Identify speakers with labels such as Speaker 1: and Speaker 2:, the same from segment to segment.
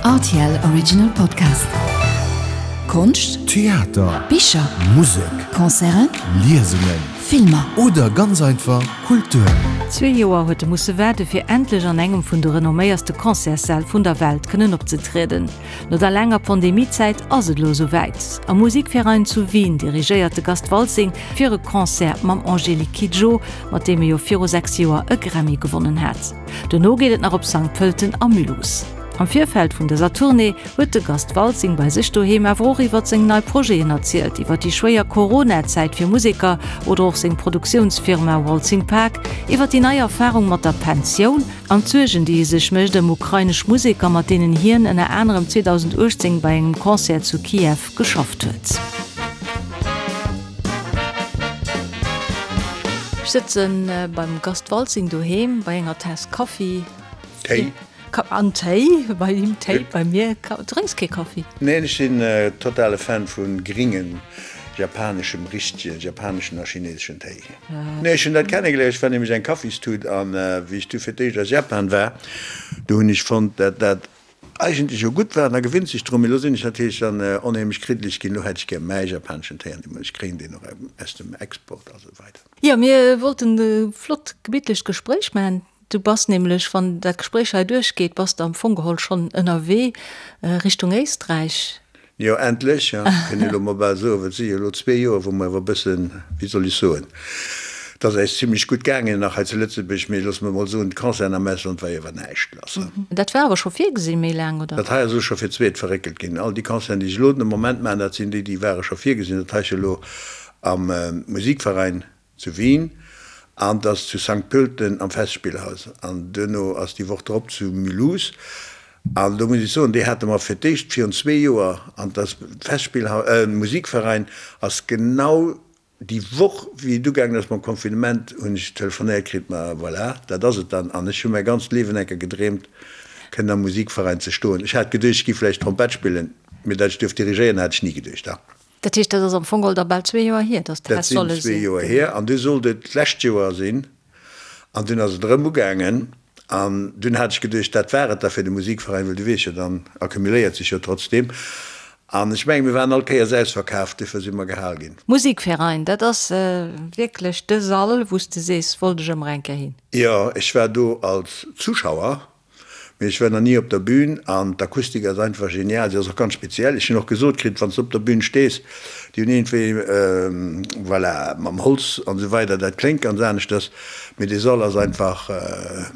Speaker 1: Rtl Original Podcast. Konscht,
Speaker 2: Theater,
Speaker 1: Bicher,
Speaker 2: Musek,
Speaker 1: Concerten,
Speaker 2: Liesungen
Speaker 1: Filmer.
Speaker 2: Oder ganz einfach Kultur.
Speaker 3: Zwee Joer huet e musse waarde fir endlech an engem vun de renomméierste Concertssäll vun der Welt kënnen opzetrieden. No der laanger Pandemiezäit ass et elo esou wäit. Am Musikverein zu Wien dirigéiert de Gast Waltzing fir e Concert mam Angélique Kidjo, mat deem e jo viru 6 Joer e Grammy gewonnen hat. Dono geet et nach op Sankt Pölten a Mulhouse. Am Virfeld vun dëser Tournée huet de Gast Waltzing bei sech doheem awer och iwwer seng nei Projeten erzielt, iwwer déi schwéier Corona-Zäit fir Museker oder och seng Produktiounsfirma Waltzing Park, iwwer déi nei Erfarung mat der Pensioun an d'Suergen, déi e sech mécht ëm ukrainesch Museker, mat deenen hien ënner anerem 2018 bei engem Concert zu Kiew geschafft huet. Ech sëtze beim Gast Waltzing doheem bei enger Taass Kaffi.
Speaker 4: Téi.
Speaker 3: An Téi, bei him Téi, bei mir Kaffi. Du drénks kee Kaffi?
Speaker 4: Neen, ech sinn totale Fan vu gringen japaneschem, richtegen japaneschen a chineseschen Téi. Nee, ech hunn dat kennegeléiert, ech war nämlech eng Kaffistut an wéi ech du fir d'éischt a Japan war, do hunn ech fonnt, dat dat eigentlech jo gutt war an da gewinnt sech drun. Mee elo sinn ech natierlech dann onheemlech kriddeleg ginn, elo hätt ech gär mäi japaneschen Téi an ech kréien deen och aus dem Export a sou weider.
Speaker 3: Jo, mir wollten e flott gemittlecht Gespréich maachen. Du bass nämlech, wann dat Gespréich hei duerchgeet, bass de am Fong geholl schonn ënnerwee Richtung Éisträich.
Speaker 4: Jo, endlech, ja, kënn ee elo mol bal soen, well et si jo elo zwee Joer, wou mer awer e bëssen, wéi soll ech soen, et ass äis zimlech gutt gaangen nach hei zu Lëtzebuerg, mee loosse mer mol soen, d'Concerten am Ausland war jo awer näischt lass.
Speaker 3: Dat war awer scho virgesinn méi laang, oder?
Speaker 4: Dat hei ass elo scho fir d'zweet verréckelt ginn. All déi Concerten, déi ech elo den Moment maachen, dat sinn déi, déi ware scho virgesinn. Dat hei ass jo elo am Musikverein zu Wien an 't ass zu Sankt Pölten am Festspielhaus an duerno ass déi Woch drop zu Mulhouse an do muss ech soen, déi hate mer fir d'éischt virun zwee Joer an 't ass Festspielhaus, Musikverein ass genau déi Woch wéi et ugaangen ass mam Confinement hunn ech telefonéiert kritt, ma voilà, dat ass et dann an ech hu mäi ganzt Liewen enker gedreemt kënnen am Musikverein ze stoen. Ech hat geduecht ech gi vläicht Trompett spillen, mee dat ech duerf dirigéieren hat ech ni geduecht.
Speaker 3: Dat heescht, dat ass am Fong geholl da bal zwee Joer hier, datt dat
Speaker 4: hätt solle sinn. Dat sinn zwee Joer hier. An du sollt et d'lescht Joer sinn. An dunn ass et erëm ugaangen. An dunn hat ech geduecht, dat war et da fir de Musikveräin, well du weess jo, dann accumuléiert sech jo trotzdeem. An ech mengen, mir waren all Kéiers ausverkaaft, duerfir si mer gehal ginn.
Speaker 3: Musikverein, dat ass wierklech de Sall, wou s de sees, wollt ech ëmmer eng Kéier hin.
Speaker 4: Jo, ech war do als Zuschauer. Mee ech war nach ni op der Bühn an d'Akustik ass einfach genial. Si ass och ganz speziell. Ech hunn och gesot kritt, wann s de op der Bühn stees, déi hunn iergendwéi, voilà, mam Holz an esou weider, dat kléngt ganz aneschters. Mee dee Sall ass einfach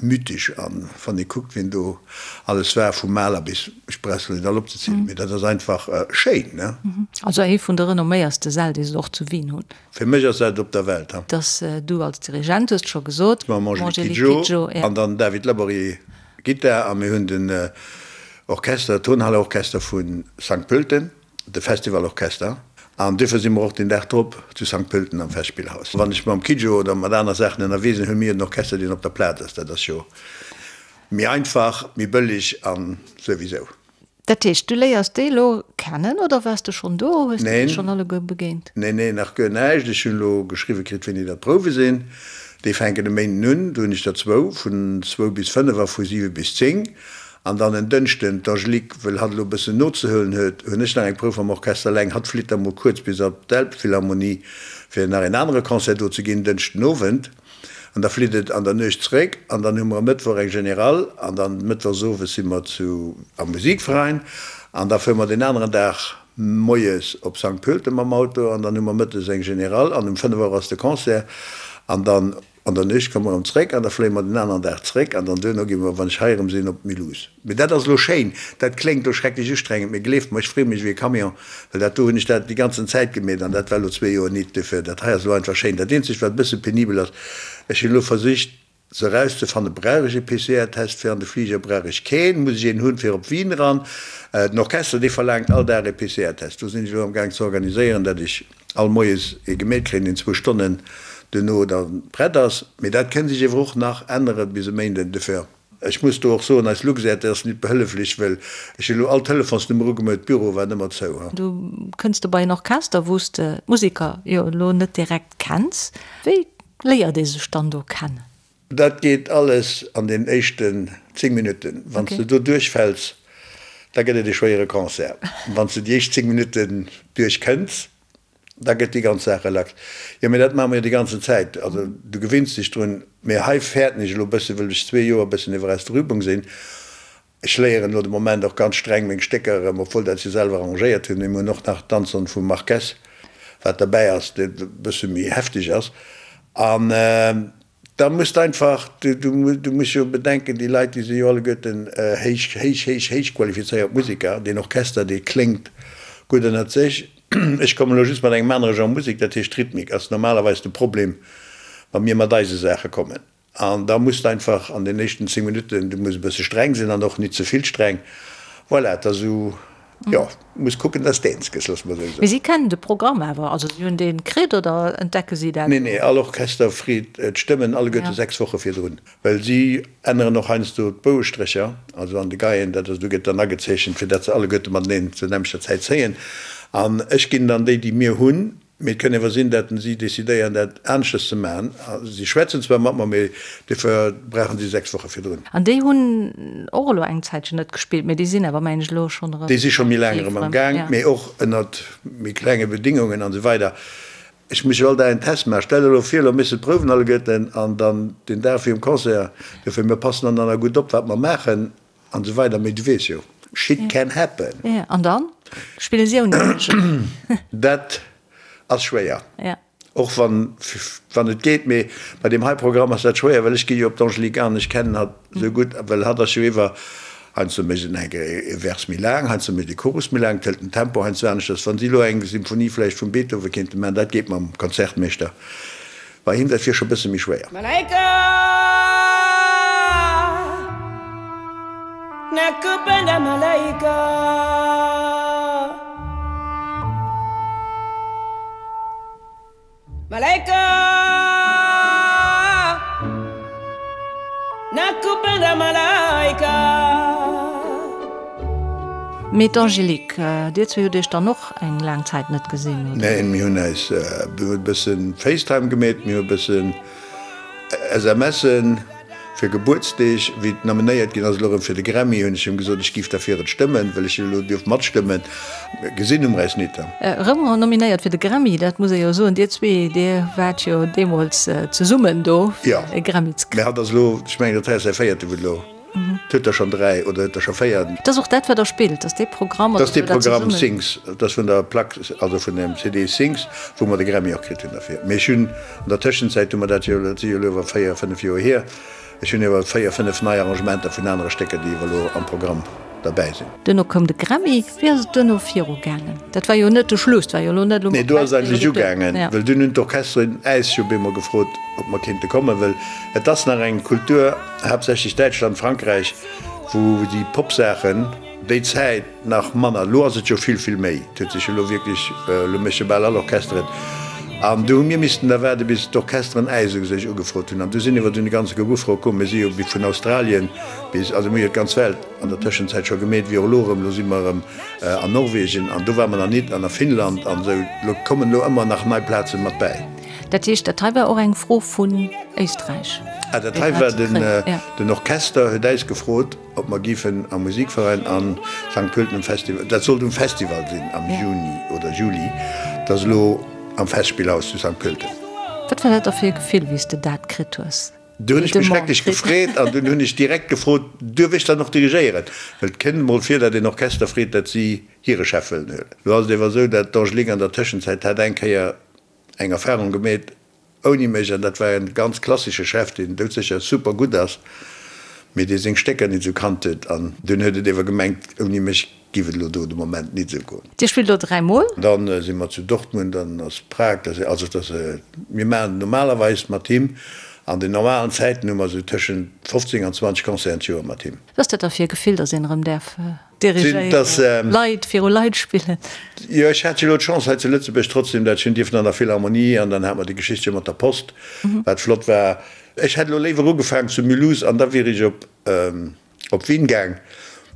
Speaker 4: mythesch an wann ee kuckt, wien do alles war, vum Mahler bis, ech brauch se net all opzezielen, mee dat ass einfach schéin, ne?
Speaker 3: Also ee vun de renomméierste Säll, déi se och zu Wien hunn.
Speaker 4: Fir mech ass dat op der Welt, ha.
Speaker 3: Dass du als Dirigent, hues de scho gesot,
Speaker 4: Mam Angélique Kidjo an dann David Laborier, Gittar, a mir hunn den Orchester, Tonhalle-Orchester vu Sankt Pölten, de Festivalorchester, an duerfir si mer och den Dag drop zu Sankt Pölten am Festspillhaus. Wann ech mam Kidjo oder mat aner Saachen ënnerwee sinn, hu mir den Orchester, deen op der Plaz ass. Dat ass jo méi einfach, méi bëlleg a souwisou.
Speaker 3: Dat heescht, du léiers déi elo kennen oder waars de schonn do? Hues de déi schonn alleguer begéint?
Speaker 4: Neen, neen, nach guer näischt. Ech hunn elo geschriwwe kritt, wéini dat d'Prouwe sinn. Déi fänken e Méinden un. Do hunn ech der zwou, vun zwou bis fënnef a vu siwe bis zéng. An dann en Dënschden, d'Angélique, wëll hatt elo e bëssen nozehuelen huet, hunn ech nach eng Prouf am Orchester eleng. Hatt flitt da mol kuerz bis op d'Elbphilharmonie, fir nach een anere Concert do ze ginn, Dënschden Owend. An da flitt et an der Nuecht zeréck an dann hu mer e Mëttwoch eng Générale an dann mëttwochs owes si mer zu am Musikverein an da fuere mer deen aneren Dag moies op Sankt Pölten mam Auto an dann hu mer mëttes eng Générale an um 5 Auer ass de Concert an dann an der Nuecht komme mer erëm zeréck an da fléie mer den aneren Dag zeréck an dann duerno gi mer, wann ech hei erëm sinn, op Mulhouse. Mee dat ass elo schéin. Dat kléngt elo schrecklech ustrengend, mee gleeft mer, ech freeë mech ewéi e Camion, well dat do hunn ech dat déi ganzen Zäit gemeet an dat war elo zwee Joer nit. Duerfir, dat hei ass elo einfach schéin. Dat eenzegt, wat e bësse penibel ass, ech hunn elo versicht se erauszefannen, Brauch ech e PCR-Test fir an de Fliger, brauch ech keen, muss ech een hunn fir op Wien eran? Den Orchester, dee verlaangt all Dag e PCR-Test. Do sinn ech elo amgaang ze organiséieren, datt ech all moies ee gemeet kréien, deen zwou Stonnen duerno da prett ass. Mee dat kënn sech ewer och nach ännere bis e Méinden. Duerfir. Ech muss do och soen, eis Luxair, déi ass nit behëlleflech, wëll ech hunn elo all Telefonsnummer ugemeut, d'Büro waren ëmmer zou.
Speaker 3: Du kënns do bei en Orchester, wou s de d'Museker jo elo net direkt kenns. Wéi léiert ee sech dann do kennen?
Speaker 4: Dat geet alles an den éischten 10 Minutten. Wann s de do duerchfäls. Da gëtt et e schwéiere Concert. Wann s de déi éischt 10 Minutten duerch kënns, da gëtt déi ganz Saach relax. Jo, mee dat maache mer jo déi ganzen Zäit. Also du gewinns dech drun. Mee hei fäerten ech elo e bëssen, wëll ech zwee Joer e bëssen iwwer aus der Übung sinn. Ech léieren elo de Moment och ganz streng meng Stécker erëm, obwuel dat ech se selwer arrangéiert hunn. Mee mir hunn och nach d'Danzon vum Marquez, wat derbäi ass, dee e bësse méi hefteg ass. An da muss de einfach, du muss jo bedenken, déi Leit, déi si jo alleguerten héich, héich, héich, héich qualifizéiert Museker. Deen Orchester, dee kléngt gutt ënnert sech. Ech kommen elo just mat engem anere Genre Musek, dat heescht Rhythmik ass normalerweis de Problem, wa mir mat eise Saache kommen. An da muss de einfach an den éischten 10 Minutten, du muss e bësse streng sinn an och nit ze vill streng. Voilà, et ass esou, jo, muss kucken, dass de eens gëss, loosse mer esou soen.
Speaker 3: Mee si kennen de Programm awer, also si hunn dee kritt oder entdecke si dat
Speaker 4: Nee, nee, all Orchester freet d'Stëmmen alleguerte 6 Woche virdrun, well si änneren och heiansdo d'Bouestrécher, also an de Geien, dat ass, do gëtt dann agezeechent, fir dat se alleguerte mateneen zur nämmlechter Zäit zéien. An ech ginn dann déi, déi mir hunn, Mee et kënn ewer sinn, dat si decidéieren, dat aneschters ze maachen. Si schwätzen zwar mat mer, mee dofir brauchen si 6 Woche virdrun.
Speaker 3: An déi hunn och elo eng Zäitchen net gespillt, mee déi sinn awer, mengen ech, elo schonn erëm
Speaker 4: Déi si scho méi laang erëm am Gaang, mee och ënnert méi klenge Bedingungen an esou weider. Ech muss jo all Dag en Test maachen. Stell der elo vir, elo méchs de d'Prouwen alleguerten an dann den Dag virum Concert. Dofir, mir passen dann dann gutt op, wat mer maachen. An esou weider, mee du weess jo, shit can happen.
Speaker 3: Jo, an dann spille si ouni dech.
Speaker 4: Dat ass schwéier, och wann, wann et geet, mee bei deem hei Programm ass dat schwéier, well ech gi jo op d'Angélique an, ech kennen hatt esou gutt, well hatt ass jo iwwer, heiansdo mécht en eng e Vers méi laang, heiansdo mécht e Chorus méi laang, et hëlt den Tempo heiansdo aneschters. Wann si elo eng Symphonie vläicht vum Beethoven kéinte maachen, dat geet mam Konzertmeeschter. Bei him dat wier scho bësse méi schwéier.
Speaker 5: Malaika nakupenda malaika. Malaika nakupenda malaika.
Speaker 3: Mee d'Angélique, dir zwee hutt iech dann och eng laang Zäit net gesinn, oder?
Speaker 4: Neen, mir hunn eis, mir hunn e bëssen Facetime gemeet, mir hu e bëssen SMSen fir Gebuertsdeeg. Wéi et nominéiert ginn ass elo erëm fir de Grammy, hunn ech him gesot, ech géif derfir et stëmmen, well ech jo elo dierf matstëmmen. Gesinn hu mer eis nit.
Speaker 3: Erëm nominéiert fir de Grammy, dat muss ee jo soen. Dir zwee, dir waart jo deemools zesummen do, fir e Grammy ze
Speaker 4: kréien. Mä hatt ass elo, ech mengen, dat hei ass säi véierte, wou et elo. Et huet der schonn 3 oder huet der scho 4.
Speaker 3: Et ass och dat, wat Der spillt, ass dee Programm.
Speaker 4: Dat ass dee Programm Sings, dat ass vun der Plack, also vun dem CD Sings, wou mer de Grammy och kritt hunn derfir. Mee ech hunn an der Tëschenzäit hu mer dat jo, dat si jo elo iwwer 4, 5 Joer hier, ech hunn iwwer 4, 5 nei Arrangementer vun anere Stécker, déi iwwer elo am Programm derbäi sinn.
Speaker 3: Duerno koum de Grammy. Wéi ass et duerno viru gaangen? Dat war jo net de Schluss, dat war jo elo net elo
Speaker 4: Nee, do ass et eigentlech ugaangen, well dunn hunn d'Orchesteren äis jo bemol gefrot, ob mer kéinte kommen, well et ass nach eng Kultur, haaptsächlech Däitschland, Frankräich, wou déi Popsaachen déi Zäit nach manner, elo ass et jo vill, vill méi, et huet sech jo elo wierklech, elo méche bal all Orchester et. An du hu mir missten da waarde bis d'Orchesteren äis u sech ugefrot hunn. An du sinn iwwer dunn e ganze Koup Ufroe komm. Mir si jo vun Australien bis, also mir hu jo d'ganz Welt an der Tëschenzäit scho gemeet, wéi och elo erëm, elo si mer erëm an Norwegen an do ware mer nach nit an a Finnland an esou, elo kommen elo ëmmer nach nei Plaze mat bäi.
Speaker 3: Dat heescht, dat hei war och eng Fro vun Éisträich?
Speaker 4: Ah, dat hei war den, den Orchester huet äis gefrot, ob mer géifen am Musikverein an Sankt Pölten um Festival, dat sollt um Festival sinn am Juni oder Juli, dat ass elo am Festspielhaus zu Sankt Pölten.
Speaker 3: Wat war dat da fir e Gefill, wéi s de dat kritt hues?
Speaker 4: Du hunn ech mech schrecklech gefreet an dunn hunn ech direkt gefrot, Duerf ech dann och dirigéieren? Well et kënnt emol vir, datt een Orchester freet, datt si hire Chef wëllen huelen. Lo ass et ewer esou, datt d'Angélique an der Tëschenzäit hat eng Kéier eng Erfahrung gemeet ouni mech an dat war en ganz klassesche Chef, deen doudsécher super gutt ass, mee dee seng Stécker nit esou kannt huet an dunn huet et ewer gemengt, ouni mech giff et elo do de Moment nit esou goen.
Speaker 3: Dir spillt elo 3 mol?
Speaker 4: Dann si mer zu Dortmund, dann ass Prag, dat ass also dat ass, mir maachen normalerweis mat him, an den normalen Zäiten hu mer esou tëschent 15 an 20 Concerten d'Joer mat him.
Speaker 3: Wat ass dat da fir e Gefill, datt een erëm däerf dirigéieren, Leit viru Leit spillen?
Speaker 4: Jo, ech hat jo elo d'Chance hei zu Lëtzebuerg trotzdem, dat ech hunn dierfen an der Philharmonie an dann hat mer déi Geschicht jo mat der Post, wat flott war. Ech hätt elo léiwer ugefaangen zu Mulhouse an da wier ech op op Wien gaang,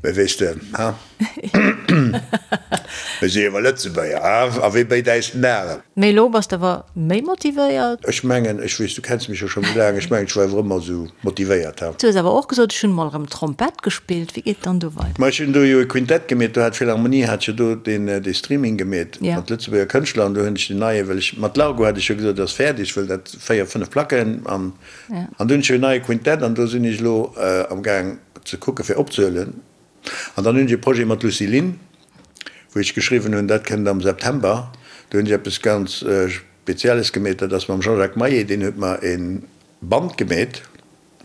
Speaker 4: mä weess de, ha? Mir si jo awer Lëtzebuerger, ha? A wee béit äis den Arem?
Speaker 3: Mee elo bass de awer méi motivéiert?
Speaker 4: Ech mengen, ech weess, du kenns mech jo scho méi laang, ech mengen, ech war awer ëmmer esou motivéiert, ha?
Speaker 3: Du hues awer och gesot, ech hunn mol erëm Trompett gespillt. Wéi geet dann do weider?
Speaker 4: Ma ech hunn do jo e Quintett gemeet, do hat d'Philharmonie hat jo do deen, dee Streaming gemeet mat Lëtzebuerger Kënschtler an do hunn ech den neie, well ech mat Largo hat ech jo gesot, et ass fäerdeg, wëll dat 4, 5 Placken an, an do hunn ech jo en neie Quintett an do sinn ech elo am Gaang ze kucke fir opzehuelen. An dann hunn ech e Projet mat Lucy Lynn, wou ech geschriwwen hunn, dat kënnt am September. Do hunn ech eppes ganz Spezielles gemeet, dat ass mam Jean-Jacques Maillet, deen huet mer e Band gemeet,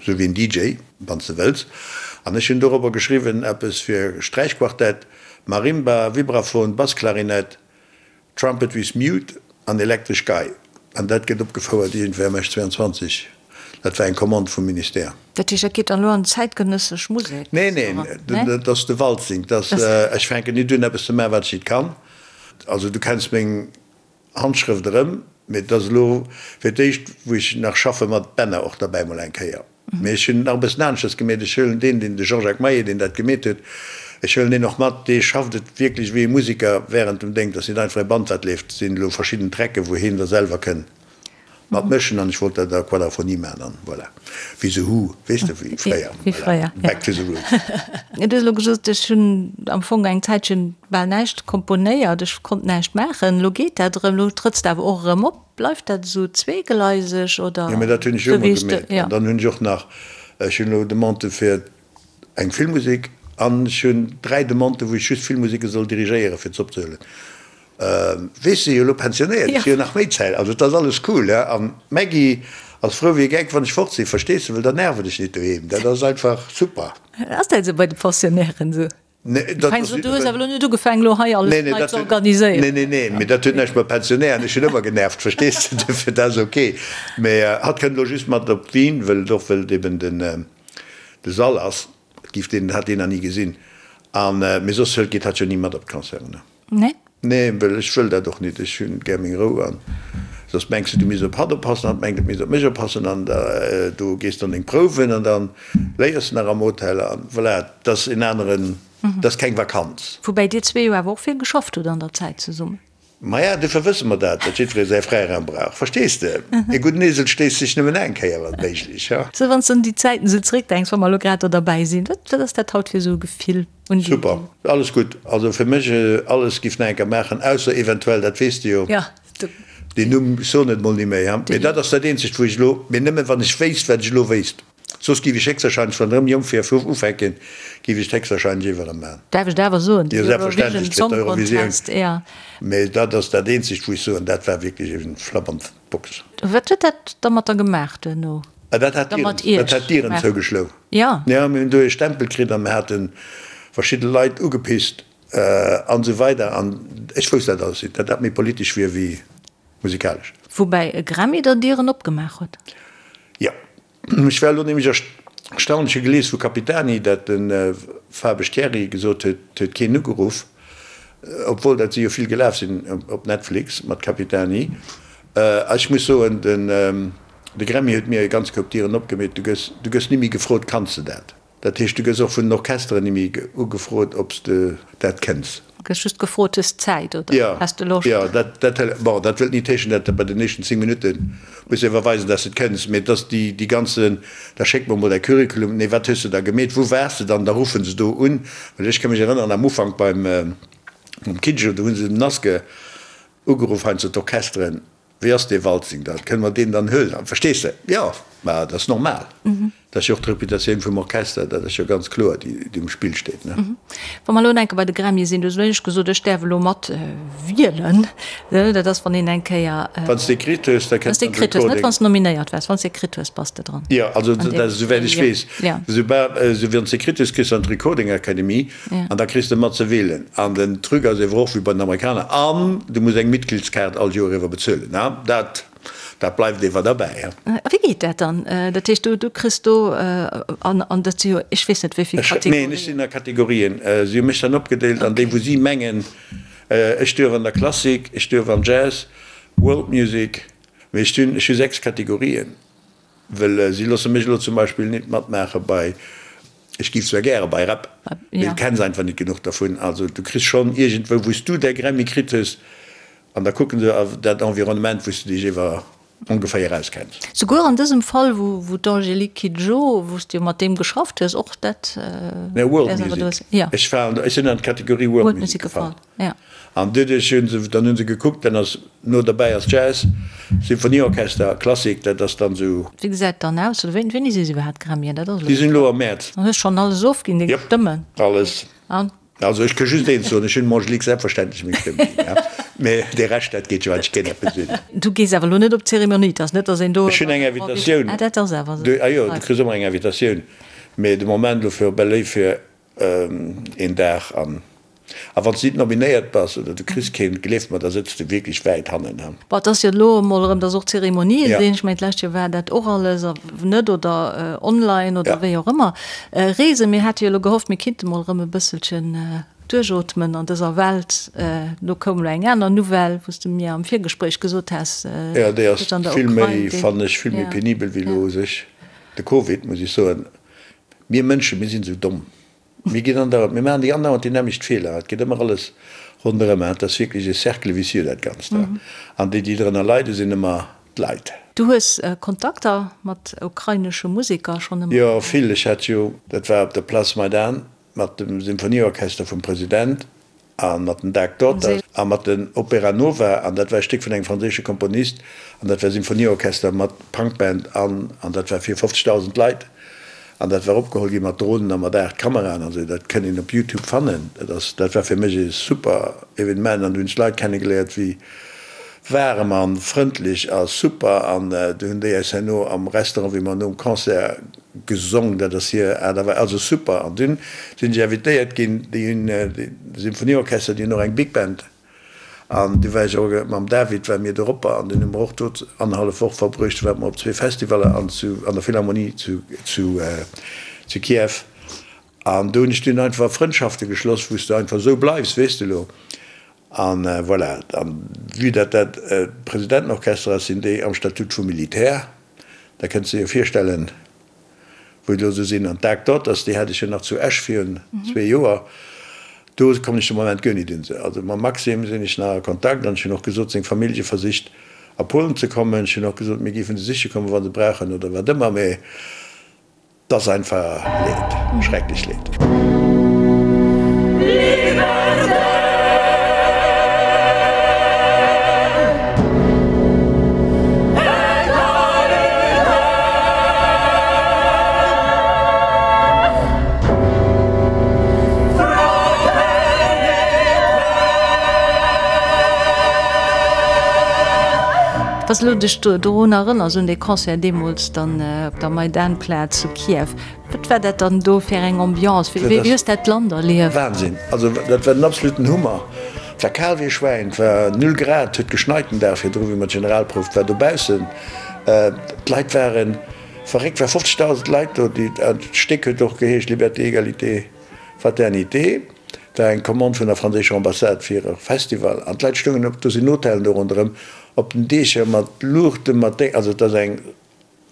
Speaker 4: esou wéi en DJ, wann s de wëlls. An ech hunn dorobber geschriwwen eppes fir Sträichquartett, Marimba, Vibraphon, Bassklarinett, Trumpet with Mute an elektresch Gei, an dat gëtt opgefouert iergendwéi am Esch 22. Dat war eng Commande vum Ministère.
Speaker 3: Dat heescht, dat geet dann elo an zäitgenëssesch Musek?
Speaker 4: Nee, neen, dat ass de Waltzing. Dat ass, ech fänken nit un eppes ze maachen, wat ech nit kann. Also du kenns meng Handschrëft erëm, mee et ass elo fir d'éischt, wou ech nach schaffe mat Bänner och derbäi mol eng Kéier. Mee ech hunn et nach e bëssen aneschters gemeet. Ech huelen deen, deen, de Jean-Jacques Maillet, deen dat gemeet huet, ech huelen deen och mat, dee schafft et wierklech wéi e Musiker während dem Déng. Dat ass net einfach e Band, wat leeft. Et sinn elo verschidden Trecken, wou hien da selwer kënn mat mëschen. An ech wollt dat a Quadraphonie maachen an voilà. Wéi The Who, weess de, wéi fréier.
Speaker 3: Wéi fréier, ja.
Speaker 4: Back to the roots.
Speaker 3: Du hues elo gesot, ech hunn am Fong eng Zäitchen bal näischt komponéiert, ech konnt näischt maachen. Elo geet dat erëm, elo trëtts de awer och erëm op. Bleift dat esou zweegleiseg oder?
Speaker 4: Jo, mä dat hunn ech jo ëmmer gemeet. An dann hunn ech och nach, ech hunn elo Demandë fir eng Filmmusek an ech hunn 3 Demandë wou ech just Filmmuseke soll dirigéieren, fir ze opzehuelen. Weess de, jo elo pensionéiert, ech hu jo nach méi Zäit, also et ass alles cool. An d'Maggy ass frou wéi e Geck, wann ech fort sinn, verstees de, well dann nerven ech nit doheem. Dat ass einfach super.
Speaker 3: Ass dat esou bei de Pensionnairen esou?
Speaker 4: Nee, dat ass.
Speaker 3: Du hues awer elo net ugefaangen, elo hei alles nei ze organiséieren.
Speaker 4: Nee, nee, nee, mee dat huet näischt mat Pensionären, ech hunn ëmmer genervt, verstees de, duerfir, dat ass ok. Mee hatt kënnt elo just mat op Wien, wëll et och, wëll et eben den, de Sall ass, et giff deen, hat deen nach ni gesinn. An, mee soss hëlt, geet hatt jo ni mat op d'Concerten, ne?
Speaker 3: Nee?
Speaker 4: Nee, well ech wëll dat och nit. Ech hunn gär meng Rou an soss mengs de, du misst op hatt oppassen, hatt mengt, et misst op mech oppassen an da du gees dann deng Prouwen an dann léiers de nach am Hotel an voilà, et ass en aneren, et ass keng Vakanz.
Speaker 3: Woubäi dir zwee jo awer och vill geschafft hutt an der Zäit zesummen.
Speaker 4: Maja, dofir wësse mer dat, datt jiddweree säi Fräiraum brauch, verstees de? E gudden Esel stéisst sech nëmmen eng Kéier, wann méiglech, ha?
Speaker 3: Sou, wann s de un déi Zäiten esou zeréckdenks, wa mer elo grad do derbäi sinn, wat, wat ass dat haut fir esou e Gefill? Un déi.
Speaker 4: Super, alles gutt. Also fir mech alles giff nach enker maachen, ausser eventuell, dat weess de jo, deen Numm, ech soen et mol ni méi, mee dat ass dat eenzegt wou ech elo, mee nëmmen wann ech wéisst wat ech elo wéisst, soss giff ech héchstwahrscheinlech, wann erëm jonk wier, vu ufänken, giff ech et héchstwahrscheinlech iwwer erëm maachen.
Speaker 3: Däerf ech dat awer soen,
Speaker 4: de Eurovision Song Contest, jo. Mee dat ass dat eenzegt wou ech soen, dat war wierklech e Flapp an d'Box.
Speaker 3: Wat huet dat da mat der gemaach duerno?
Speaker 4: Dat hat d'Dieren zougeschloen.
Speaker 3: Jo.
Speaker 4: Jo, mir hunn do ee Stempel kritt a mir hate verschidde Leit ugepisst an esou weider an ech wousst dat alles nit, datt dat méi politesch wier wéi musikalesch.
Speaker 3: Woubäi e Grammy der Dieren opgemaach huet.
Speaker 4: Jo, ech war elo nämlech erstaunt, ech hu gelies vu Capitani, datt de Fabesch Thierry gesot huet, et huet keen ugeruff, obwuel dat si jo vill gelaf sinn op Netflix mat Capitani. A ech muss soen, den. De Grammy huet mir e ganz Koup Dieren opgemeet. Du gëss, du gëss ni méi gefrot, Kanns de dat? Dat heescht, du gëss och vun den Orchesteren ni méi ugefrot, ob s de dat kënns.
Speaker 3: Du gëss just gefrot, Hues Zäit oder has de Loscht?
Speaker 4: Jo, dat, dat, bon, dat wëllt nit heeschen, dat de bei den éischten 10 Minutte muss de iwwerweisen, dass de et kënns, mee et ass déi, déi ganze, da schéck mer mol däi Curriculum, nee, wat hues de da gemeet, wou waars de dann? Da ruffe se do un. Well ech ka mech erënneren, am Ufank beim, mam Kidjo, do hu se dem Naske ugeruff, heiansdo d'Orchesteren, Wéi ass dee Waltzing dann? Kënne mer deen dann huelen? Verstees de? Jo, mä dat ass normal. Dat ass jo och d'Reputatioun vum Orchester, dat ass jo ganz kloer, déi um Spill steet, ne?
Speaker 3: Wa mer elo enke bei de Grammye sinn, du hues elo éischt gesot, ech däerf elo mat wielen. Dat ass, wann een eng Kéier.
Speaker 4: Wann s de kritt hues, da
Speaker 3: kënnt dann de Recording. Net wann s de nominéiert waars, wann s de kritt hues, bass de dran.
Speaker 4: Jo, also dat ass, esouwäit ech weess, esoubal, esou wann s de kritt hues, kriss de an d'Recording Academy. An da kriss de mat ze wielen. An den Truc ass ewer och wéi bei den Amerikaner, an du muss eng Mitgliedskaart all Joer ewer bezuelen. Dat, dat bleift ewer derbäi.
Speaker 3: A wéi geet dat dann? Dat heescht, du, du kriss do, an, an dat si jo, ech weess net wéi vill
Speaker 4: Kategorien. Neen, ech sinn a Kategorien. Si hu mech dann opgedeelt an déi, wou si mengen, ech duerf an der Klassik, ech duerf am Jazz, World Music, mee ech hunn, ech hu 6 Kategorien. Well si loosse mech elo zum Beispill nit matmaache bei. Ech giff zwar gäre bei Rap, mee du kenns einfach nit genuch dervun. Also du kriss schonn iergendwou, wou s du däi Grammy kritt hues, an da kucken se dat Environnement, wou s du dech ewer ongeféier auskenns.
Speaker 3: Souguer an dësem Fall, wou d'Angélique Kidjo, wou s du jo mat deem geschafft hues, och dat.
Speaker 4: Nee, World Music. Ech war, ech sinn an d'Kategorie World Music gefall. An doduerch hunn se, dann hunn se gekuckt, dann ass no derbäi ass Jazz, Symphonieorchester, Klassik, dat ass dann esou.
Speaker 3: Wéi gesäit et dann aus? Oder wéini si se iwwerhaapt Grammyen?
Speaker 4: Dat ass elo. Déi sinn elo am Mäerz.
Speaker 3: Dann hues schonn alles ofginn, deng Stëmmen?
Speaker 4: Jop, alles.
Speaker 3: An?
Speaker 4: Also ech ka just eent soen, ech hunn dem Angélique selbstverständlech meng Stëmm ginn, ja. Mee dee Rescht, dat geet jo eigentlech keen eppes un.
Speaker 3: Du gees awer elo net op d'Zeremonie, et ass net, datt een do.
Speaker 4: Ech hunn eng Invitatioun.
Speaker 3: Ah, dat ass awer esou.
Speaker 4: Ah jo, du kriss ëmmer eng Invitatioun. Mee de Moment elo fir op LA fir een Dag an a wann s de nit nominéiert bass oder du kriss keen, gleef mer, da sëtz de wierklech wäit hannen.
Speaker 3: Bon, et ass jo elo emol erëm, dass och Zeremonië sinn. Ech mengen, d'lescht Joer war dat och alles net oder online oder wéi och ëmmer. Reesen, mir hate jo elo gehofft, mir kinnte mol erëm e bësselchen duerchootmen an dëser Welt. Elo koum elo eng aner Nouvelle, wou s de mir am Virgespréich gesot has,
Speaker 4: Jo, déi ass vill méi, fannen ech, vill méi penibel wéi elo u sech de Covid, muss ech soen. Mir Mënschen, mir sinn esou domm. Mir ginn andauernd, mir maachen déi andauernd déi nämmlecht Feeler. Et geet ëmmer alles ronderëm. Et ass wierklech e Cercle vicieux, dat Ganzt. An déi, déi drënner leiden, sinn ëmmer d'Leit.
Speaker 3: Du hues Kontakter mat ukrainesche Museker schonn ëmmer?
Speaker 4: Jo, vill. Ech hat jo, dat war op der Place Maidan mat dem Symphonieorchester vum President, A mat den Dark Daughters a mat den Opera Nova, an dat war e Stéck vun engem franséische Komponist, an dat war Symphonieorchester mat Punkband an, an dat war fir 50.000 Leit, an dat war opgeholl gi mat Dronen a mat 8 Kameraen an esou, dat kënnt een op Youtube fannen. Dat ass, dat war fir mech e super Evenement an du hunn ech Leit kennegeléiert wéi waarem a frëndlech a super, an du hunn déi eis herno am Restaurant, wéi mer nom Concert Gesong, dat ass hir Aart a Weis, also super. An dunn sinn ech invitéiert ginn, déi hunn de Symphonieorchester, déi hunn och eng Big Band. An du war ech och mam David ware mir doropper an dunn hu mer och do annerhallef Woch verbruecht. Du ware mer op zwee Festivaller an zu an der Philharmonie zu zu zu Kiew. An do hunn ech dunn einfach Frëndschafte geschloss, wou s de einfach esou bleifs, weess de elo. An voilà, an vue dat dat Presidentenorchester ass, sinn déi am Statut vum Militär. Da kënns de dir virstellen, wou elo esou sinn. An d'Dark Daughters, déi hat ech jo nach zu Esch virun zwee Joer. Do kommen ech de Moment guer nit un se. Also mam Maxim sinn ech nach a Kontakt an ech hunn och gesot, seng Famillje versicht a Polen ze kommen. Ech hunn och gesot, mir géifen se siche kommen, wa se brauchen oder wat ëmmer. Mee 't ass einfach Leed, schrecklech Leed.
Speaker 3: Wanns de dech dorun erënners, un dee Concert deemools dann op der Maidan-Plaz zu Kiew, wat war dat dann do fir eng Ambiance? Wéi hues dat Land erlieft?
Speaker 4: Wahnsinn! Also dat war den absoluten Hummer. Et war kal wéi e Schwäin, et war null Grad, et huet geschneit den Dag virdru wéi mer d'Generalprouf, et war dobaussen, d'Leit ware verréckt, et war 50.000 Leit do, déi, d'Stéck huet och geheescht Liberté, Égalité, Fraternité, et war eng Commande vun der franséischer Ambassade fir e Festival an d'Leit stoungen op, do sinn Hotellen do ronderëm, op den Diecher mat Luuchten, mat Déng, also et ass eng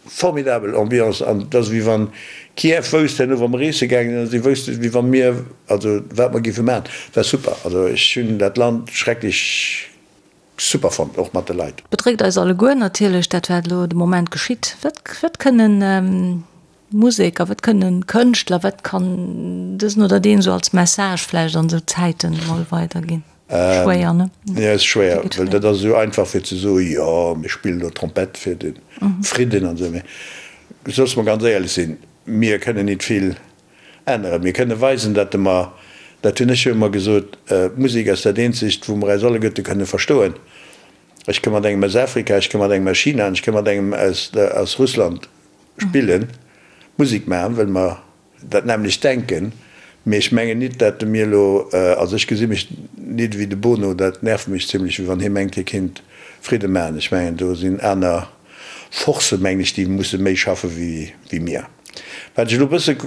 Speaker 4: formidabel Ambiance an et ass wéi wann Kiew wousst herno wa mer reese gaangen sinn, si woussten wéi wa mir, also wat mer géife maachen. Et war super, also ech hunn dat Land schrecklech super fonnt, och mat de Leit.
Speaker 3: Bedréckt eis alleguer natierlech dat wat elo de Moment geschitt. Wat wat kënnen Museker, wat kënnen Kënschtler, wat kann dësen oder deen esou als Message vläicht an esou Zäiten emol weiderginn? Schwéier, ne?
Speaker 4: Jo, ass schwéier, well dat ass esou einfach fir ze soen, jo mir spillen elo Trompett fir de Fridden an esou. Mee loosse mer ganz éierlech sinn, mir kënnen nit vill änneren. Mir kënne weisen, datt mer, dat hunn ech jo ëmmer gesot, d'Musek ass dat eenzegt, wou mer eis alleguerte kënne verstoen. Ech ka mat engem aus Afrika, ech ka mat engem aus China an ech ka mat engem aus Russland spillen, Musek maachen, well mer dat nämmlecht denken. Mee ech mengen nit, dat mir elo, also ech gesi mech nit ewéi de Bono, dat nervt mech zimlech, wéi wann hie mengt, hie kinnt Fridde maachen. Ech mengen, do sinn aner Forcen, mengen ech, déi musse méi schaffe wéi mir. Wat ech elo e bësse,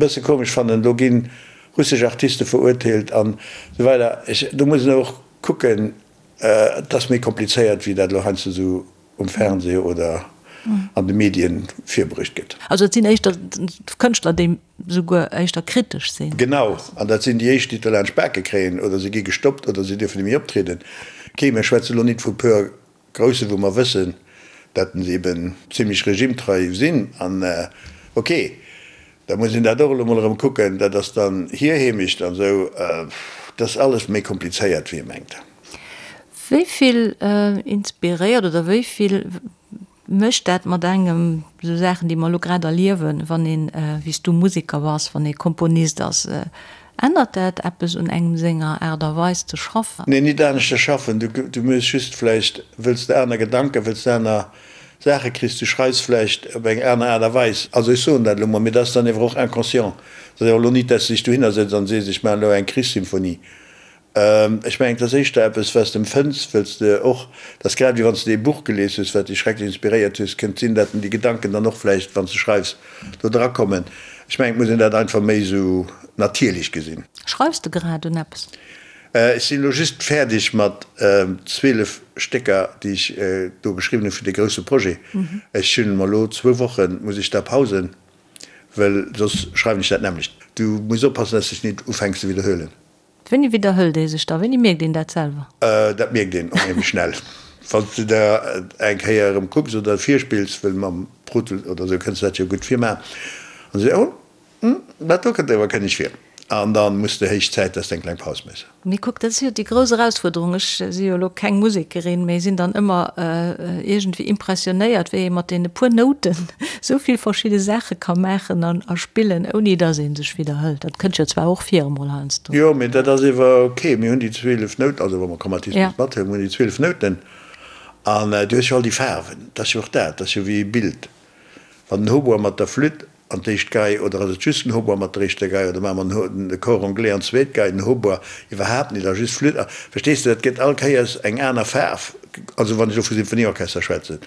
Speaker 4: bësse komesch fannen, elo gi russesch Artiste verurteelt an esou weider, ech, do muss een och kucken, et ass méi komplizéiert, wéi dat elo heiansdo esou um Fernseh oder. an de Medien virbruecht gëtt.
Speaker 3: Also et sinn éischter Kënschtler, déi souguer éischter kritesch sinn.
Speaker 4: Genau, an dat sinn déi éischt, déi et laanscht d'Bake kréien, oder se gi gestoppt oder se dierfen net méi optrieden. Okay, mir schwätze lo nit vu puer Grousse wou mer wëssen, dat se eben zimlech regimetrei sinn, an ok, da muss een dat och elo mol erëm kucken, dat ass dann hir Heemecht an esou, dat ass alles méi komplizéiert wéi ee mengt.
Speaker 3: Wéi vill inspiréiert oder wéi vill mécht dat mat engem, esou Saachen déi mer elo grad erliewen, wann een, wéi s du Museker bass, wann ee Komponist ass, Ännert dat eppes un engem senger Aart a Weis ze schaffen?
Speaker 4: Nee, nit aneschter schaffen. Du hues just vläicht, wëlls de aner Gedanken, wëlls de aner Saache kriss, du schreifs vläicht op eng aner Aart a Weis. Also ech soen dat elo mol, mee dat ass dann ewer och inconscient. Dat ass ewer elo nit, dass de dech dohinner sëtz an sees, ech maachen elo eng Krichssymphonie. Ech mengen, et ass éischter eppes, wat s de empfënns, wëlls de och, dat ass grad wéi wann s de ee Buch gelies hues, wat dech schrecklech inspiréiert hues, kënnt sinn, dat déi Gedanken dann och vläicht, wann s de schreifs, do dra kommen. Ech mengen, et muss een dat einfach méi esou natierlech gesinn.
Speaker 3: Schreifs de grad un eppes?
Speaker 4: Ech sinn elo just fäerdeg mat 12 Stécker, déi ech do geschriwwen hu fir dee grousse Projet. Ech hunn mer elo zwou Woche muss ech da Pausen, wëll soss schreiwen ech dat nämmlecht. Du muss oppassen, dass s de dech nit ufänks ze widderhuelen.
Speaker 3: Wéini widderhëlt ee sech da? Wéini mierkt een dat selwer?
Speaker 4: Dat mierkt een onheemlech schnell. Wann s de der eng Kéier erëm kucks oder virspills, wëll mam Pro Tools oder esou kënns de dat jo gutt virmaachen, an se, oh, hm, dat do kënnt awer kënneg vir. An da muss de héich Zäit, dass de eng kleng Paus méchs.
Speaker 3: Mee kuck, dat ass jo déi grouss Erausfuerderung. Ech si jo elo keng Musekerin, mee sinn dann ëmmer iergendwéi impressionéiert, wéi ee mat deene puer Nouten esou vill verschidde Saache ka maachen an a spillen, ouni dass ee sech widderhëlt. Dat kënnt jo zwar och vir emol heiansdo.
Speaker 4: Jo, mee dat ass ewer ok. Mir hunn déi 12 Nouten, also wa mer Chromatismus mathuelen, mir hunn déi 12 Nouten an du hues jo all déi Faarwen. Dat ass jo och dat, dat ass jo wéi e Bild. Wann den Hautbois mat der Flütt an d'éischt Gei, oder ass et just den Hautbois mat der éischter Gei, oder maache mer den Cor anglais an d'zweet Gei, den Hautbois iwwerhaapt net a just Flütt. Verstees de, dat gëtt all Kéiers eng aner Faarf, also wann ech elo vu Symphonieorchester schwätzen.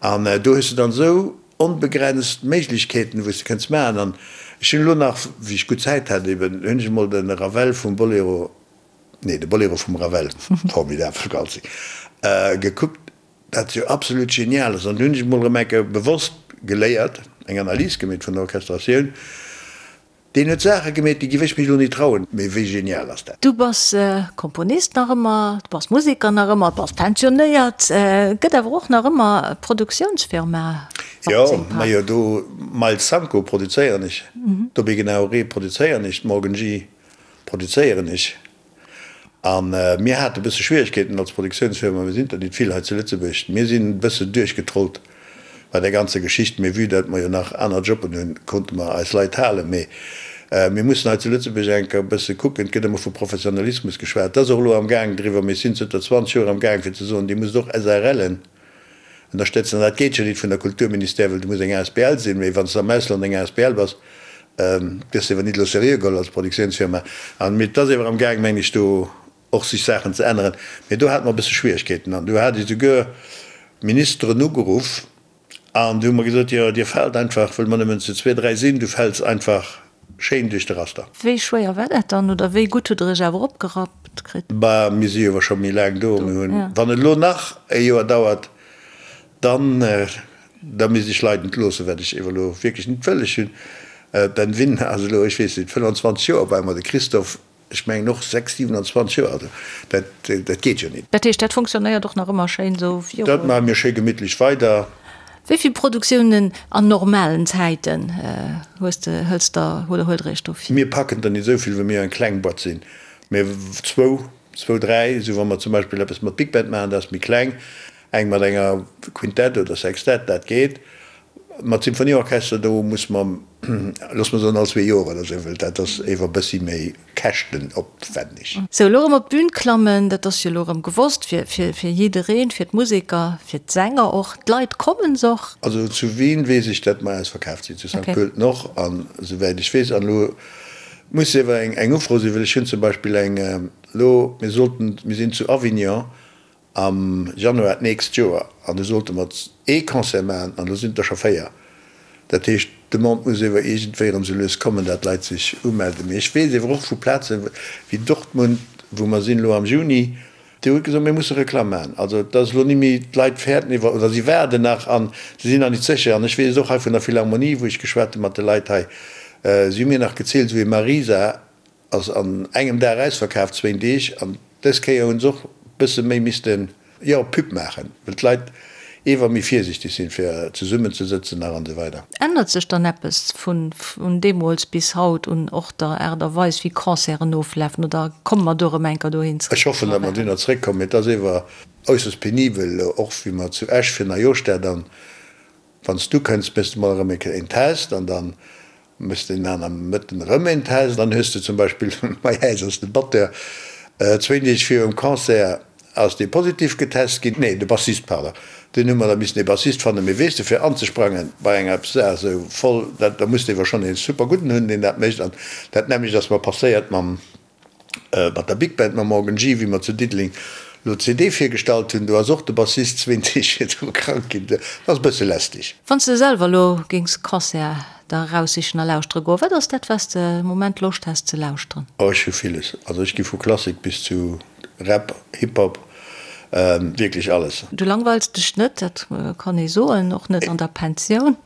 Speaker 4: An do hues de dann esou onbegrenzt Méiglechkeeten, wou s de kënns maachen. An ech hunn elo nach, wéi ech gutt Zäit hat eben, hunn ech emol de Ravel vum Bolero, nee, de Bolero vum Ravel, formidabel, Galzi, gekuckt. Dat jo absolut genial ass. An du hunn ech emol erëm eng Kéier bewosst geléiert, eng Analys gemeet vun der Orchestratioun. Deen huet Saache gemeet, déi giff ech mech elo ni trauen. Mee wéi genial ass dat?
Speaker 3: Du bass Komponist nach ëmmer, du bass Museker nach ëmmer, du bass pensionéiert. Gëtt awer och nach ëmmer d'Produktiounsfirma
Speaker 4: Jo, majo do Miles Sanko produzéieren ech, Dobby Genau-Ré produzéieren ech, Morgan G produzéieren ech. A mir hate e bësse Schwieregkeeten als Produktiounsfirma, mir sinn der nit vill hei zu Lëtzebuerg, mir sinn e bësse duerchgetrollt bei där ganzer Geschicht, mee vue dat mer jo nach aner Jobben hunn, konnte mer eis Leit halen. Mee mir mussen hei zu Lëtzebuerg eng Kéier e bësse kucken, et gëtt ëmmer vu Professionalismus geschwat, dat ass och elo amgaang driwwer, mee ech sinn zënter 20 Joer amgaang fir ze soen, Dir musst och SARLen ënnerstëtzen. An dat geet jo nit vun der Kulturministère, well du muss eng asbl sinn, mee wann s de am Ausland eng asbl bass, gëss de ewer nit elo seriö geholl als Produktiounsfirma. An mee et ass ewer am gaang, meng ech, do och sech Saachen ze änneren. Mee do hate mer e bësse Schwieregkeeten an do hat ech souguer Ministeren ugeruff an déi hu mer gesot, jo dir faalt einfach, wëll mer nëmmen zu zwee, dräi sinn, du fäls einfach schéin duerch de Raster.
Speaker 3: Wéi schwéier war dat dann oder wéi gutt hutt der iech awer opgerappt kritt?
Speaker 4: Bah, mir si jo ewer scho méi laang do. Mir hunn, wann et elo nach e Joer dauert, dann, da misst ech Leit entloossen, wat ech ewer elo wierklech net wëll. Ech hunn, Ben Wynn ass elo, ech weess net, 25 Joer bei mer, de Christophe, ech mengen och 6, 27 Joer, also dat, dat geet jo net.
Speaker 3: Dat heescht, dat funktionéiert och nach ëmmer schéin esou
Speaker 4: virun? Dat maache mir schéi gemittlech weider.
Speaker 3: Wéi vill Produktiounen an normalen Zäiten hues de, hëls der oder huelt der iech do vir?
Speaker 4: Mir packen der net esou vill, well mir jo eng kleng Boîte sinn, mä zwou, zwou, dräi, esou wa mer zum Beispill eppes mat Big Band maachen, dat ass méi kleng, eng mat enger Quintett oder Sextett, dat geet. Mat Symphonieorchester, do muss mer, loosse mer soen, all zwee Joer oder esou, well dat ass ewer e bëssi méi käschtenopwänneg.
Speaker 3: Sou, elo erëm op d'Bün klammen, dat ass jo elo erëm gewosst fir, fir, fir jiddereen, fir d'Museker, fir d'Sänger och. D'Leit kommen se och?
Speaker 4: Also zu Wien weess ech, datt mer ausverkaaft sinn, zu Sankt Pölten och, an esouwäit ech weess. An elo muss ewer eng, eng Ufro sinn, well ech hunn zum Beispill eng elo, mir sollten, mir sinn zu Avignon Am Januar d'nächst Joer, an do sollte mer ee Concert maachen, an elo sinn et der scho 4. Dat heescht, d'Demande muss ewer iergendwéi erëm sou lues kommen, dat d'Leit sech umelden. Mee ech weess ewer och vu Plaze wéi Dortmund, wou mer sinn elo am Juni, Déi huet gesot, mir musse Reklamm maachen. Also et ass elo ni méi, d'Leit fäerten iwwer, oder si waarden nach an si sinn nach nit sécher. An ech weess et och hei vun der Philharmonie, wou ech geschwat hu mat de Leit hei, si hu mir nach gezielt, esou ee Marisa ass an engem Dag ausverkaaft, zwéin Deeg. An dës Kéier hu se och bësse méi missten, jo, Pub maachen, well d'Leit ewer méi virsichteg sinn, fir zesummen ze sëtzen nach an esou weider.
Speaker 3: Ännert sech dann eppes vun deemools bis haut un och der Aart a Weis, wéi Concerten oflafen, oder komme mer do erëm eng Kéier dohin
Speaker 4: zréck? Ech hoffen, datt mer dunner zréckkommen, mee et ass ewer äusserst penibel, och wéi mer zu Esch fir Neijooschdag dann, wann s du kënns, méchs de mol erëm eng Kéier een Test an dann Méchs de en aner Mëtten erëm een Test, dann hues de zum Beispill, bei äis ass de Batteur zwéin Deeg virum Concert ass dee positiv getest ginn, nee de Bassist, pardon, dunn hu mer da missen ee Bassist fannen, mee weess de fir anzesprangen bei enger Saach esou voll, dat da muss de ewer schonn ee super gudden hunn deen dat mécht an dat nämmlecht ass mer passéiert mam Mat der Big Band mam Morgan G, wéi mer zu Diddeleng lo d'CD virgestallt hunn, do ass och de Bassist zwéin Deeg virdru krank ginn. Dat ass e bësse lästeg.
Speaker 3: Wann s de selwer elo géings Concert der eraussichen a lauschtere goen, wat ass dat, wat s de am Moment Loscht häss ze lauschteren?
Speaker 4: Oh, ech hu villes. Also ech gi vu Klassik bis zu Rap, Hip Hop, wierklech alles.
Speaker 3: Du langweils dech net, dat kann ee soen, och net an der Pensioun.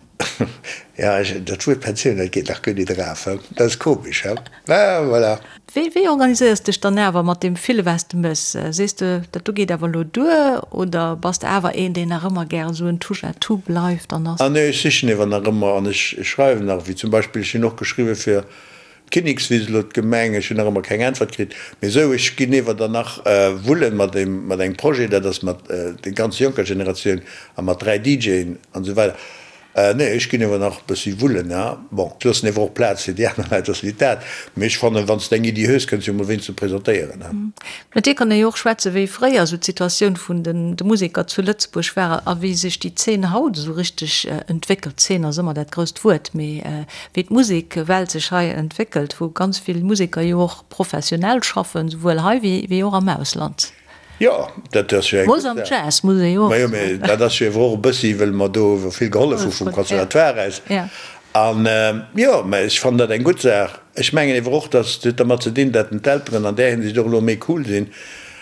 Speaker 4: Ja, ech, dat Wuert Pensioun, dat geet nach guer nit eraf, he? Dat ass komesch, he? Mä voilà.
Speaker 3: Wéi, wéi organiséiers dech dann awer mat deem ville wat s de méchs? Sees de, dat do geet awer elo duer oder bass de awer een, deen nach ëmmer gären esou en Touche à tout bleift an ass?
Speaker 4: Ah nee, ech sichen ewer nach ëmmer an ech schreiwen nach, wéi zum Beispill, ech hunn och geschriwwe fir d'Kinnekswiss, elo d'Gemeng, ech hunn nach ëmmer keng Äntwert kritt, mee esou, ech ginn ewer dann nach wullen mat deem, mat engem Projet, dat ass mat der ganz jonker Generatioun a mat 3 DJen an esou weider. Nee, ech ginn ewer nach e bëssi wullen, ha. Bon, ech loossen ewer och Plaz fir déi aner Leit, ass nit dat, mee ech fannen, wann s de eng Iddi hues, kënns jo mol wéinst ze presentéieren, ha.
Speaker 3: Mat dir kann ee jo och schwätzen, wéi fréier esou d'Situatioun vun de Museker zu Lëtzebuerg war a wéi sech déi Zeen haut esou richteg entwéckelt. Zeen ass ëmmer dat grousst Wuert, mee wéi d'Musekwelt sech hei entwéckelt, wou ganz vill Museker jo och professionell schaffen, souwuel hei wéi och am Ausland.
Speaker 4: Jo, dat ass jo eng gutt Saach.
Speaker 3: Jazz muss ee jo och
Speaker 4: Majo, mee dat ass jo ewer och e bëssi, wëll mer do ewer vill gehollef hu vum Conservatoire aus. An jo, mä ech fannen dat eng gutt Saach. Ech mengen ewer och, dass et huet dermat ze dinn, dat d'Elteren an där Hinsicht och elo méi cool sinn,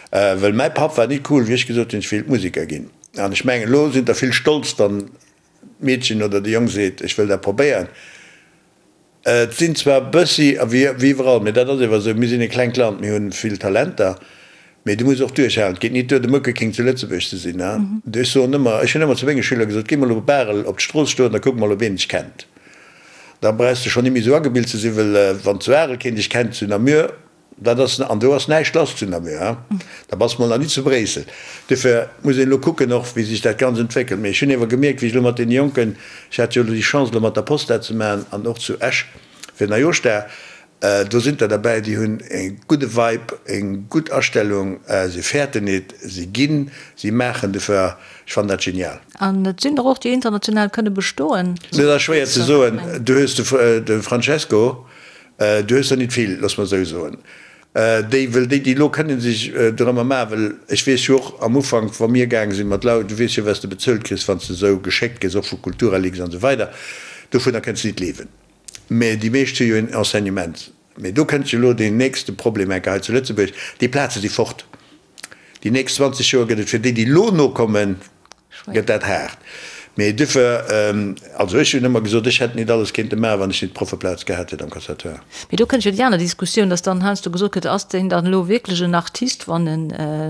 Speaker 4: wëll mäi Papp war nit cool, wéi ech gesot hunn, ech wéilt Museker ginn. An ech mengen, elo sinn der vill stolz, wann d'Meedchen oder de Jong seet, ech wëll dat probéieren. Et sinn zwar e bëssi, a wéi iwwerall, mee dat ass ewer esou, mir sinn e klengt Land, mir hunn vill Talenter, mee du muss och duerchhalen. Et geet nit duer, de Muckeking zu Lëtzebuerg ze sinn. Ech soen ëmmer, ech hunn ëmmer zu menge Schüler gesot, Géi mol op Barel op d'Strooss stoen, da kuck mol, ob een dech kennt. Da brauchs de schonn nit méi esou agebilt ze sinn, well wann zu Arel keen dech kennt, zu Namur, Dat ass, an do ass näischt lass zu Namur, hein? Da bass mol nach nit zu Bréissel. Duerfir muss een elo kucken och, wéi sech dat Ganzt entwéckelt. Mee ech hunn ewer gemierkt, wéi ech elo mat deene Jonken, ech hat jo elo déi Chance, elo mat der Post dat ze maachen an och zu Esch fir Neijooschdag, do sinn der derbäi, déi hunn e gudde Vibe, eng gutt Astellung, se fäerten nit, se ginn, si maachen. Duerfir, ech fannen dat genial.
Speaker 3: An et sinn der och, déi international kënne bestoen.
Speaker 4: Dat ass schwéier ze soen. Du hues de Francesco, Du hues der nit vill, looss mer esou soen. Déi, wëll déi, déi elo kënnen sech dorëmmer maachen, wëll ech weess jo och am Ufank, wa mir gaange sinn mat Lau, du weess jo, wat s de bezuelt kriss, wann s de esou geschéckt gëss, och vu Kulturalix an esou weider, dovunner kënns de nit liewen. Mä déi meescht hu jo en Enseignement. Mä do kënnt jo elo deen nächste Problem enke hei zu Lëtzebuerg, déi Plaze si fort. Déi nächst 20 Joer gëtt et fir déi, déi elo nokommen, gëtt dat haart. Mee duerfir, also ech hunn ëmmer gesot, ech hätt nit alles kéinte maachen, wann ech nit d'Proffeplaz gehat hätt am Conservatoire.
Speaker 3: Mee do kënnt jo déi aner Diskussioun, dass dann heiansdo gesot gëtt, ass deen dann elo wierklech en Artist, wann en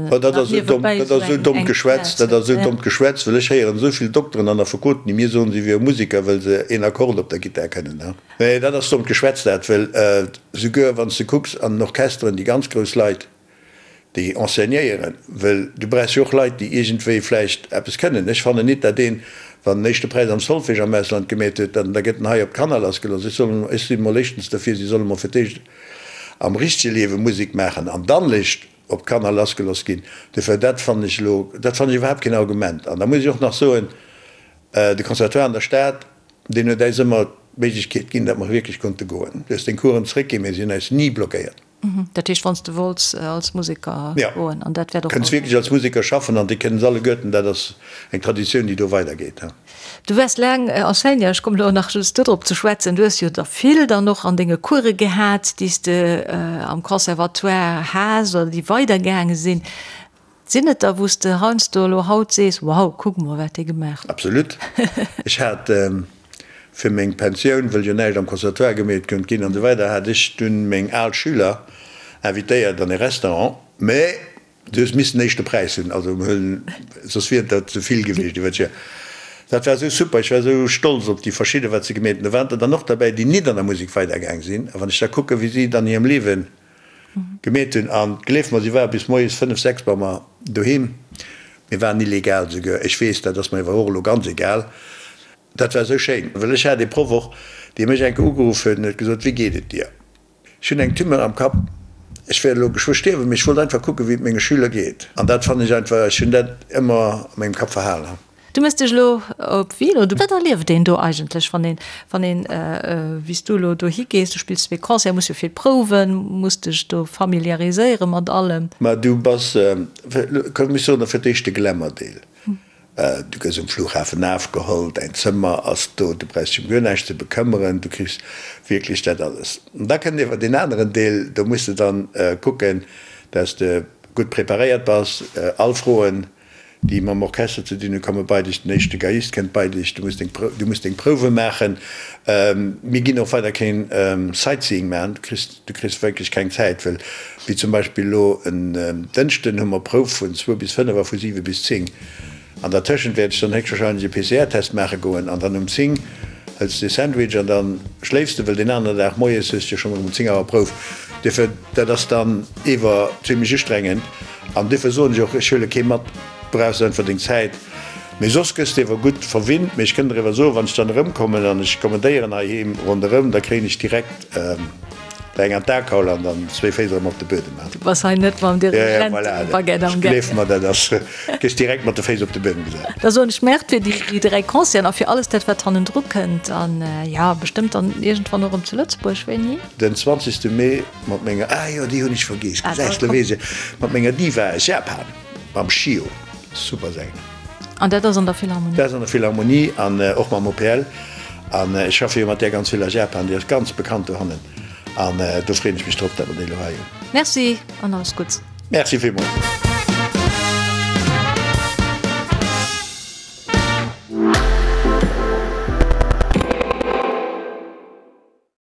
Speaker 4: Oh, dat ass esou domm, dat ass esou dommt Geschwätz, dat ass esou dommt Geschwätz, well ech héieren esou vill Dokteren an Affekoten, déi mir soen, si wiere Musiker, well se een Akkord op der Gittar kënnen. Nee, dat ass dommt Geschwätz dat, well souguer wann s de kucks an den Orchesteren, déi ganz grouss Leit, déi enseignéieren, well du brauchs jo och Leit, déi iergendwéi vläicht eppes kënnen. Ech fannen nit, dat een, wann en éischte Präis am Solfège am Ausland gemeet huet, dann da gëtt en hei op d'Kanner lassgelooss. Ech soll, ech si mol éischtens derfir, si solle mol fir d'éischt am richtege Liewe Musek maachen an dann léischt op d'Kanner lassgelooss ginn. Dofir, dat fannen ech elo, dat fannen ech iwwerhaapt keen Argument. An da muss ech och nach soen, de Conservatoire an der Stad, deen huet äis ëmmer d'Méiglechkeet ginn, datt mer wierklech konnte goen. Du hues deng Coursen zréckginn, mee si hunn äis ni blockéiert.
Speaker 3: Dat heescht, wann s de wollts als Museker goen, an dat wäert
Speaker 4: och. Kënns wierklech als Museker schaffen an déi kënnen se alleguerten. Dat ass eng Traditioun, déi do weidergeet.
Speaker 3: Du waars laang Enseignant, ech kommen elo nach just dodrop ze schwätzen. Du hues jo der vill dann och an denge Course gehat, déi s de am Conservatoire has oder déi weidergaange sinn. Sinn et der, wou s de heiansdo elo haut sees, Wow, kuck mol, wat dee gemaach huet?
Speaker 4: Absolut. Ech hat fir meng Pensioun, wëll jo näischt am Conservatoire gemeet konnt ginn an esou weider, hat ech dunn meng al Schüler invitéiert an e Restaurant, mä du hues missen éischte Präis hunn, also soss wier dat ze vill gewiescht iwwer d'Joer. Dat war esou super, ech war esou stolz op déi verschidde wat se gemeet hunn. Do waren der dann och derbäi, déi nit an der Musek weidergaang sinn, a wann ech da kucken, wéi si et an hirem Liewen Gemeet hunn. An gleef mer, si ware bis moies 5, 6 bei mer doheem. Mir waren illegal souguer. Ech weess, dat ass mer iwwer och elo ganz egal. Dat war esou schéin, well ech hat ee Proff och, dee mech eng Kéier ugeruff huet an huet gesot, Wéi geet et dir? Ech hunn eng Tumeur am Kapp, ech wäert elo geschwë stierwen, mee ech wollt einfach kucken, wéi et menge Schüler geet. An dat fannen ech einfach, ech hunn dat ëmmer a mengem Kapp verhalen.
Speaker 3: Du mëss dech elo op Wien, oder wat erlieft een do eigentlech, wann een, wann een, wéi s du elo dohi gees, du spills zwee Concerten, muss jo vill prouwen, muss dech do familiariséiere mat allem?
Speaker 4: Ma du bass, komm ech soen der fir d'éischt de Glamour-Deel, du gëss um Flughafen afgeholl, däin Zëmmer ass do, du brauchs dech ëm guer näischt ze bekëmmeren, du kriss wierklech dat alles. An da kënnt ewer deen aneren Deel, do muss de dann kucken, dass de gutt preparéiert bass, all Froen, déi mam Orchester ze dinn hunn, komme bei dech, den éischte Geiist kënnt bei dech, du muss deng, du muss deng Prouwe maachen. Mir ginn och weider keen Sightseeing maachen, du kriss, du kriss wierklech keng Zäit, well wéi zum Beispill elo en Dënschden hu mer Prouf vun zwou bis fënnef a vu siwe bis zéng. An dertëschent wäert ech dann héchstwahrscheinlech e PCR-Test maache goen an dann um zéng hëls de e Sandwich an da schléifs de, well deen aneren Dag moies hues de jo schonn erëm um zéng Auer Prouf. Duerfir, dat ass dann ewer zimlech ustrengend. An duerfir soen ech och, ech huele kee mat, du brauchs einfach deng Zäit. Mee soss gëss de ewer gutt verwinnt. Mee ech kënnt der ewer soen, wann ech dann erëmkommen an ech kommen Déieren heiheem ronderëm, da kréien ech direkt der eng an d'Akaul an dann zwéi Féiss erëm op de Buedem.
Speaker 3: Du bass hei net mam Dirigentebaguette am Gaang.
Speaker 4: Gleef mer, dat ass, gëss direkt mat de Féiss op de Buedem gesat.
Speaker 3: Da soen ech Merci fir déi 3 Concerten a fir alles dat, wat hannendru kënnt. An jo, bestëmmt dann iergendwann och erëm zu Lëtzebuerg. Wéini?
Speaker 4: Den 20. Mee. Mat menger, ah jo, déi hunn ech vergeess, gesäis de, weess ech, mat menger Diva aus Japan, mam Shio, super Sänger.
Speaker 3: An dat ass an der Philharmonie?
Speaker 4: Dat ass an der Philharmonie an och mam OPL. An ech schaffe jo mat där ganz vill a Japan, déi ass ganz bekannt dohannen. An do freeën ech mech drop, datt mer déi elo hei hunn.
Speaker 3: Merci an alles Gutts.
Speaker 4: Merci villmools.